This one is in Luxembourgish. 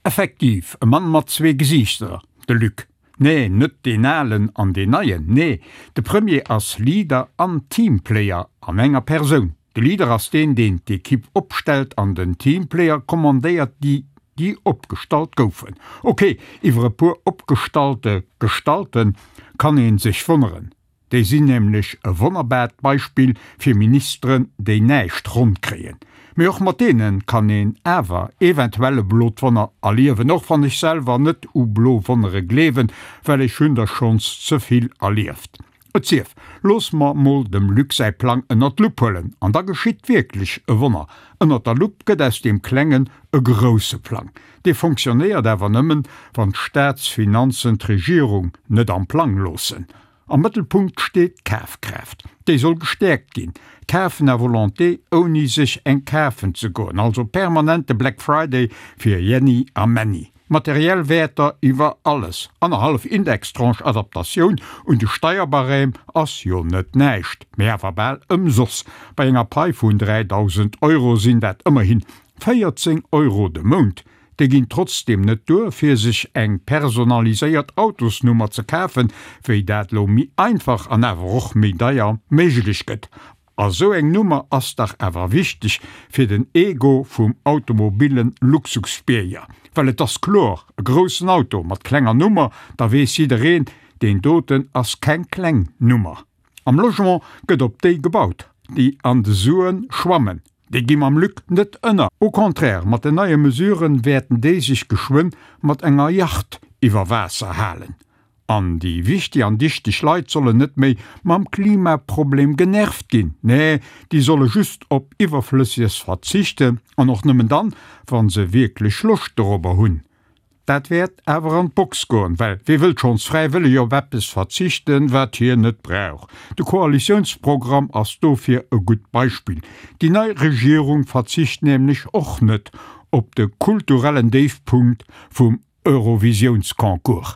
Effektiv, e Mann mat zwee Gesiichter, de Luc. Nee, net deen alen an deen neien, nee, de Premier ass Leader an Teamplayer an enger Persoun. De Leader ass deen, deen d'Ekipp opstellt an den Teamplayer kommandéiert déi, déi opgestallt goufen. Ok, iwwer e puer opgestallte Gestalten kann ee sech wonneren. Déi sinn nämlech e wonnerbaart Beispill fir Ministeren, déi näischt ronn kréien. Mee och mat deene kann een awer eventuell e blot Wonner erliewen, och wann ech selwer net u blo Wonnere gleewen, well ech hunn der schonns ze vill erlieft. Et sief, looss mer mol dem Luc säi Plang ënnert d'Lupp huelen, an da geschitt wierklech e Wonner. Ënnert der Lupp gëtt aus deem klengen e grousse Plang. Dee fonctionnéiert awer nëmmen, wann d'Staatsfinanzen d'Regierung net am Plang loossen. Am Mëttelpunkt steet d'Kafkraaft. Déi soll gestäerkt ginn. Kafen à volonté, ouni sech eng kafen ze goen. Also permanente Black Friday fir Jenny a Männi. Materiell Wäerter iwwer alles. Annerhallef Indextranche Adaptatioun un de Steierbarème ass jo net näischt, mee awer bal ëmsoss. Bei enger Pai vun 3.000 Euro sinn dat ëmmerhin 14 Euro de Mount. Déi ginn trotzdeem net duer, fir sech eng personaliséiert Autosnummer ze kafen, wéi dat lo méi einfach an awer och méi deier méiglech gëtt. A sou eng Nummer ass dach awer wichteg fir den Ego vum automobile Luxusbierger. Well et ass kloer, e groussen Auto mat klenger Nummer, da weess jiddereen, deen doten ass keng kleng Nummer. Am Logement gëtt op déi gebaut, déi an de Suen schwammen. Déi gi mam Luc net ënner. Au contraire, mat den neie Mesuren wäerten déi sech geschwënn mat enger Yacht iwwer Waasser halen. An déi wichtig an dichteg Leit sollen net méi mam Klimaproblem genervt ginn. Nee, déi solle just op Iwwerflësseges verzichten, an och nëmmen dann, wa se wierklech Loscht dorobber hunn. Dat wäert awer an d'Box goen, well wee wëllt schonns fräiwëlleg op eppes verzichten, wat hien net brauch? De Koalitiounsprogramm ass dofir e gutt Beispill. Déi nei Regierung verzicht nämlech och net op de kulturellen Déifpunkt vum Eurovisiounsconcours.